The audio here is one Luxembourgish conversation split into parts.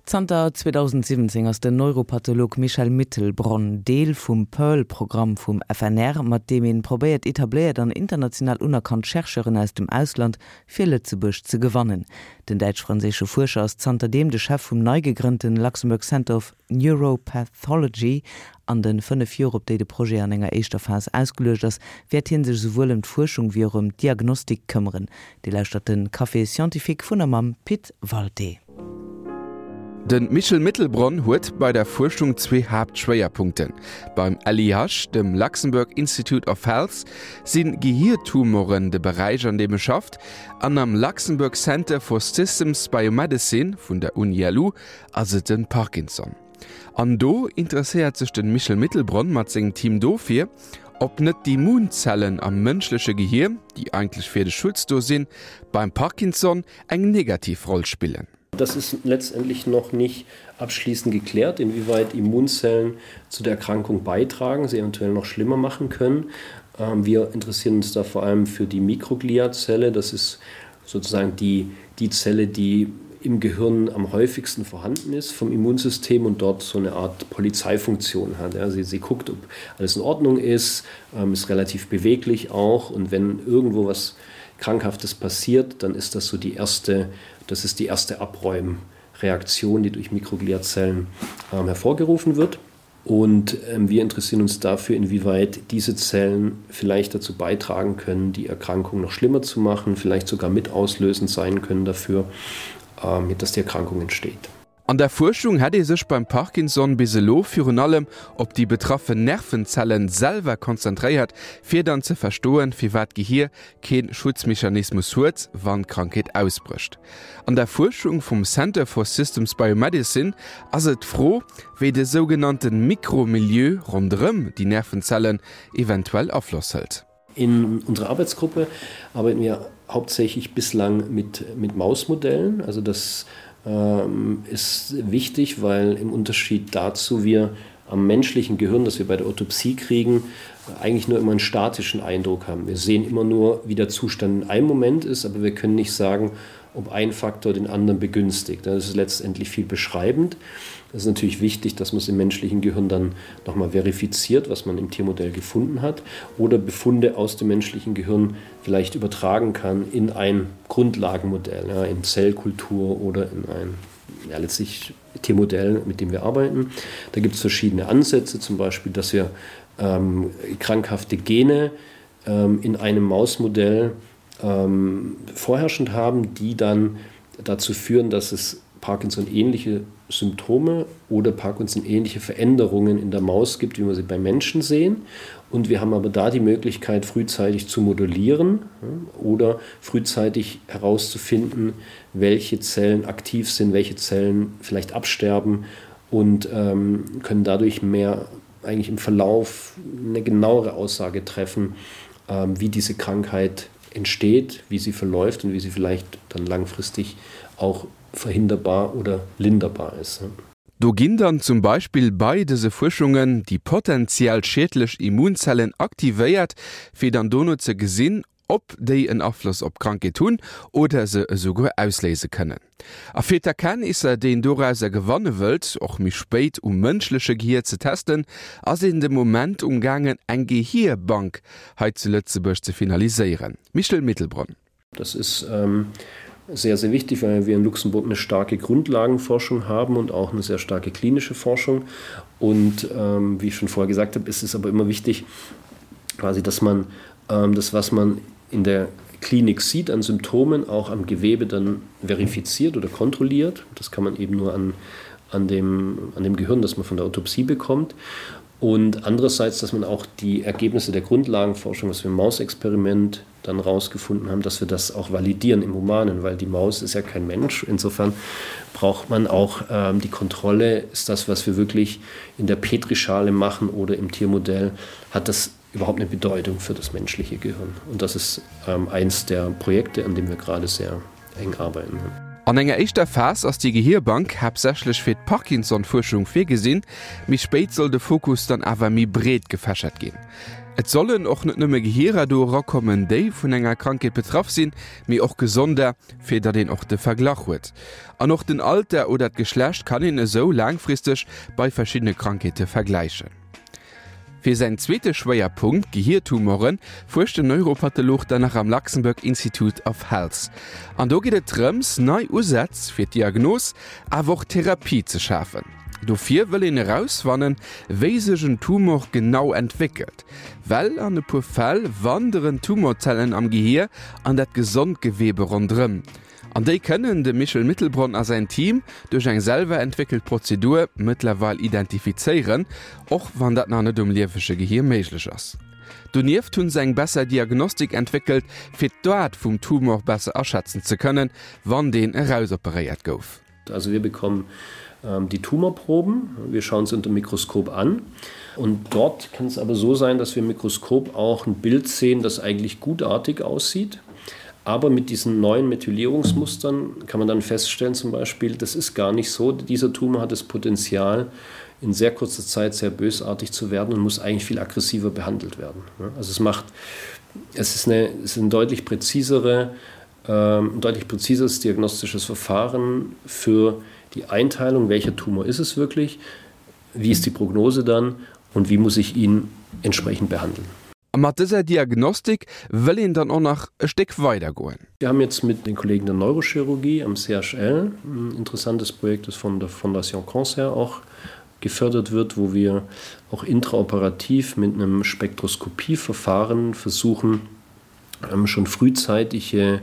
Zanter 2017 ass den Neuropatholog Michel Mittelbronn Deel vum Pearl-Programm vum FNR, mat deem een probéiert etabléiert an international unerkannt Chercheuren aus dem Ausland fir Lëtzebuerg ze gewannen. Den däitsch-franséische Fuerscher ass zanterdeem de Chef vum nei gegrënnten Luxembourg Center of Neuropathology. An de 5 Joer, op déi de Projet an enger éischter Phas ausgeluecht ass, wäert hie sech esouwuel ëm d'Fuerschung wéi och ëm d'Diagnostik këmmeren. Dir lauschtert de Café Scientifique vun a mam Pit Walté. De Michel Mittelbronn huet bei der Fuerschung zwee Haaptschwéierpunkten. Beim LIH, dem Luxembourg Institute of Health, si Gehiertumoren de Beräich an deem e schafft, an am Luxembourg Center for Systems Biomedicine vun der Uni-LU ass et de Parkinson. An do interesséiert sech de Michel Mittelbronn mat sengem Team dofir, ob net d'Immunzellen am mënschleche Gehier, déi eigentlech fir de Schutz do sinn, beim Parkinson eng negativ Roll spillen. Das ist letztendlich noch nicht abschließend geklärt, inwieweit Immunzellen zu der Erkrankung beitragen, sie eventuell noch schlimmer machen können. Ähm, wir interessieren uns da vor allem für die Mikrogliazelle. Das ist sozusagen die, die Zelle, die im Gehirn am häufigsten vorhanden ist vom Immunsystem und dort so eine Art Polizeifunktion hat. Ja, sie, sie guckt, ob alles in Ordnung ist, ähm, ist relativ beweglich auch und wenn irgendwo was Krankhaftes passiert, dann ist das so die erste, das ist die erste Abräumreaktion, die durch Mikrogliazellen ähm, hervorgerufen wird. Und ähm, wir interessieren uns dafür, inwieweit diese Zellen vielleicht dazu beitragen können, die Erkrankung noch schlimmer zu machen, vielleicht sogar mit auslösend sein können dafür, ähm, dass die Erkrankung entsteht. An der Fuerschung hätt ee sech beim Parkinson bis elo virun allem op déi betraffen Nervenzellen selwer konzentréiert, fir dann ze verstoen, firwat d'Gehier kee Schutzmechanismus huet, wann d'Krankheet ausbrécht. An der Fuerschung vum Center for Systems Biomedicine ass et d'Fro, wéi de sougenannte Mikromilieu ronderëm déi Nervenzellen eventuell Afloss hëlt. In unserer Arbeitsgruppe arbeiten wir hauptsächlich bislang mit, mit Mausmodellen. Also das ähm, ist wichtig, weil im Unterschied dazu wir am menschlichen Gehirn, das wir bei der Autopsie kriegen, eigentlich nur immer einen statischen Eindruck haben. Wir sehen immer nur, wie der Zustand in einem Moment ist, aber wir können nicht sagen, ob ein Faktor den anderen begünstigt. Das ist letztendlich viel beschreibend. Das ist natürlich wichtig, dass man es im menschlichen Gehirn dann nochmal verifiziert, was man im Tiermodell gefunden hat oder Befunde aus dem menschlichen Gehirn vielleicht übertragen kann in ein Grundlagenmodell, ja, in Zellkultur oder in ein ja, letztlich Tiermodell, mit dem wir arbeiten. Da gibt es verschiedene Ansätze, zum Beispiel, dass wir ähm, krankhafte Gene ähm, in einem Mausmodell ähm, vorherrschend haben, die dann dazu führen, dass es Parkinson-ähnliche Symptome oder Parkinson-ähnliche Veränderungen in der Maus gibt, wie wir sie bei Menschen sehen. Und wir haben aber da die Möglichkeit, frühzeitig zu modulieren oder frühzeitig herauszufinden, welche Zellen aktiv sind, welche Zellen vielleicht absterben und ähm, können dadurch mehr eigentlich im Verlauf eine genauere Aussage treffen, ähm, wie diese Krankheit entsteht, wie sie verläuft und wie sie vielleicht dann langfristig auch verhinderbar oder linderbar ist. Do ginn dann zum Beispill bei dëse Fuerschungen déi potentiell schiedlech Immunzellen aktivéiert, fir dann dono ze gesinn, ob déi en Afloss op d'Krankheet hunn oder se esouguer ausléise kënnen. A fir d'Erkenntnisser, déi een dorauser gewanne wëllt, och méi spéit um mënschleche Gehier ze testen, ass een de Moment um gaangen eng Gehierbank hei zu Lëtzebuerg ze finaliséieren. Michel Mittelbronn. Das ist ähm, sehr, sehr wichtig, weil wir in Luxemburg eine starke Grundlagenforschung haben und auch eine sehr starke klinische Forschung. Und ähm, wie ich schon vorher gesagt habe, ist es aber immer wichtig, quasi, dass man ähm, das, was man in der Klinik sieht an Symptomen, auch am Gewebe dann verifiziert oder kontrolliert. Das kann man eben nur an, an, dem, an dem Gehirn, das man von der Autopsie bekommt. Und andererseits, dass man auch die Ergebnisse der Grundlagenforschung, was wir im Mausexperiment dann rausgefunden haben, dass wir das auch validieren im Humanen, weil die Maus ist ja kein Mensch. Insofern braucht man auch ähm, die Kontrolle, ist das, was wir wirklich in der Petrischale machen oder im Tiermodell, hat das überhaupt eine Bedeutung für das menschliche Gehirn. Und das ist ähm, eins der Projekte, an dem wir gerade sehr eng arbeiten. An enger éischter Phas ass déi Gehierbank haaptsächlech fir d'Parkinson-Fuerschung virgesinn, méi spéit soll de Fokus dann awer méi breet gefächert ginn. Et sollen och net nëmme Gehierer do erakommen, déi vun enger Krankheet betraff sinn, mee och gesonder, fir datt een och de Verglach huet. An och den Alter oder d'Geschlecht kann een esou laangfristeg bei verschiddene Krankheete vergläichen. Fir säin zweete Schwéierpunkt, Gehiertumoren, fuerscht den Neuropatholog dann nach am Luxembourg Institute of Health. An do geet et drëms, nei Usätz fir d'Diagnos, awer och d'Therapie ze schafen. Dofir wëll een erausfannen, wéi sech en Tumor genau entwéckelt. Well an e puer Fäll wanderen Tumorzellen am Gehier an dat gesond Gewebe ronderëm. An déi kënnen de Michel Mittelbronn a säin Team duerch eng selwer entwéckelt Prozedur mëttlerweil identifizéieren, och wann dat nach net um liewege Gehier méiglech ass. Donieft hunn se eng besser Diagnostik entwéckelt, fir d'Aart vum Tumor besser aschätzen ze kënnen, wann deen erausoperéiert gouf. Also wir bekommen ähm, die Tumorproben, wir schauen sie unter dem Mikroskop an. Und dort kann es aber so sein, dass wir im Mikroskop auch ein Bild sehen, das eigentlich gutartig aussieht. Aber mit diesen neuen Methylierungsmustern kann man dann feststellen zum Beispiel, das ist gar nicht so. Dieser Tumor hat das Potenzial, in sehr kurzer Zeit sehr bösartig zu werden und muss eigentlich viel aggressiver behandelt werden. Also es macht es ist eine, es ist eine deutlich präzisere, ähm, ein deutlich präzises diagnostisches Verfahren für die Einteilung, welcher Tumor ist es wirklich, wie ist die Prognose dann und wie muss ich ihn entsprechend behandeln. A mat dëser Diagnostik wëll een dann och nach e Stéck weider goen. Wir haben jetzt mit den Kollegen der Neurochirurgie am CHL ein interessantes Projekt, das von der Fondation Cancer auch gefördert wird, wo wir auch intraoperativ mit einem Spektroskopieverfahren versuchen, ähm, schon frühzeitige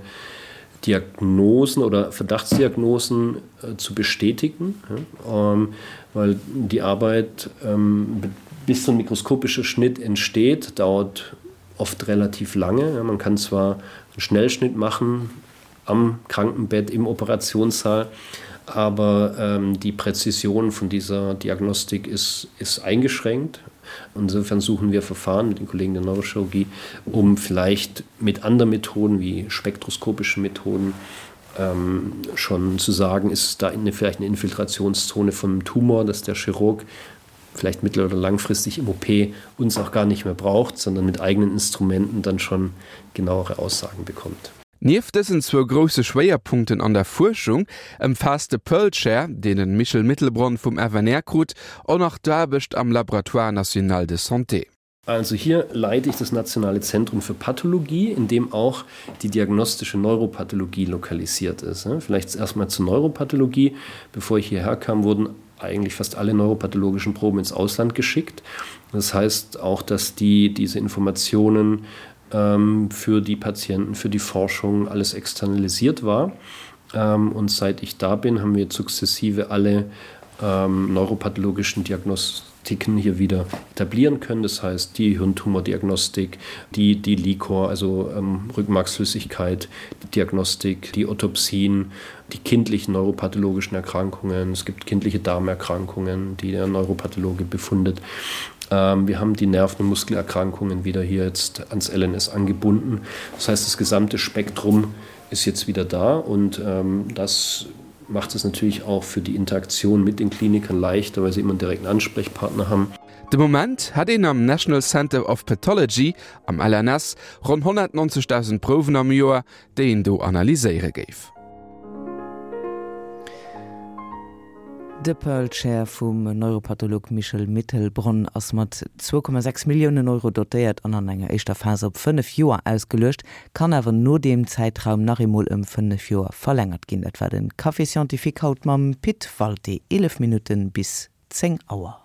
Diagnosen oder Verdachtsdiagnosen äh, zu bestätigen, ja, ähm, weil die Arbeit ähm, bis so ein mikroskopischer Schnitt entsteht, dauert oft relativ lange. Ja, man kann zwar einen Schnellschnitt machen am Krankenbett im Operationssaal, aber ähm, die Präzision von dieser Diagnostik ist, ist eingeschränkt. Insofern suchen wir Verfahren mit den Kollegen der Neurochirurgie, um vielleicht mit anderen Methoden wie spektroskopischen Methoden ähm, schon zu sagen, ist da eine, vielleicht eine Infiltrationszone vom Tumor, dass der Chirurg vielleicht mittel- oder langfristig im OP uns auch gar nicht mehr braucht, sondern mit eigenen Instrumenten dann schon genauere Aussagen bekommt. Nieft dësen zwou grousse Schwéierpunkten an der Fuerschung ëmfaasst de Pearl Chair, deen de Michel Mittelbronn vum FNR krut, och nach d'Aarbecht am Laboratoire national de santé. Also hier leite ich das Nationale Zentrum für Pathologie, in dem auch die diagnostische Neuropathologie lokalisiert ist. Vielleicht erstmal zur Neuropathologie. Bevor ich hierher kam, wurden eigentlich fast alle neuropathologischen Proben ins Ausland geschickt. Das heißt auch, dass die diese Informationen ähm, für die Patienten, für die Forschung alles externalisiert war. Ähm, und seit ich da bin, haben wir sukzessive alle ähm, neuropathologischen Diagnostiken hier wieder etablieren können. Das heißt die Hirntumordiagnostik, die, die Likor, also ähm, Rückenmarksflüssigkeit, die Diagnostik, die Autopsien, die kindlichen neuropathologischen Erkrankungen. Es gibt kindliche Darmerkrankungen, die der Neuropathologe befundet. Ähm, wir haben die Nerven- und Muskelerkrankungen wieder hier jetzt ans LNS angebunden. Das heißt, das gesamte Spektrum ist jetzt wieder da und ähm, das macht es natürlich auch für die Interaktion mit den Klinikern leichter, weil sie immer einen direkten Ansprechpartner haben. De Moment hätt een am National Center of Pathology am LNS ronn 190.000 Prouwen am Joer, déi een do analyséiere géif. De Pearl Chair vum Neuropatholog Michel Mittelbronn ass mat 2,6 Milliounen Euro dotéiert an an enger éischter Phas op 5 Joer ausgeluecht, kann awer no deem Zäitraum nach eemol ëm 5 Joer verlängert ginn. Dat war de Café Scientifique haut mam Pit Walté, 11 Minutten bis 10 Auer.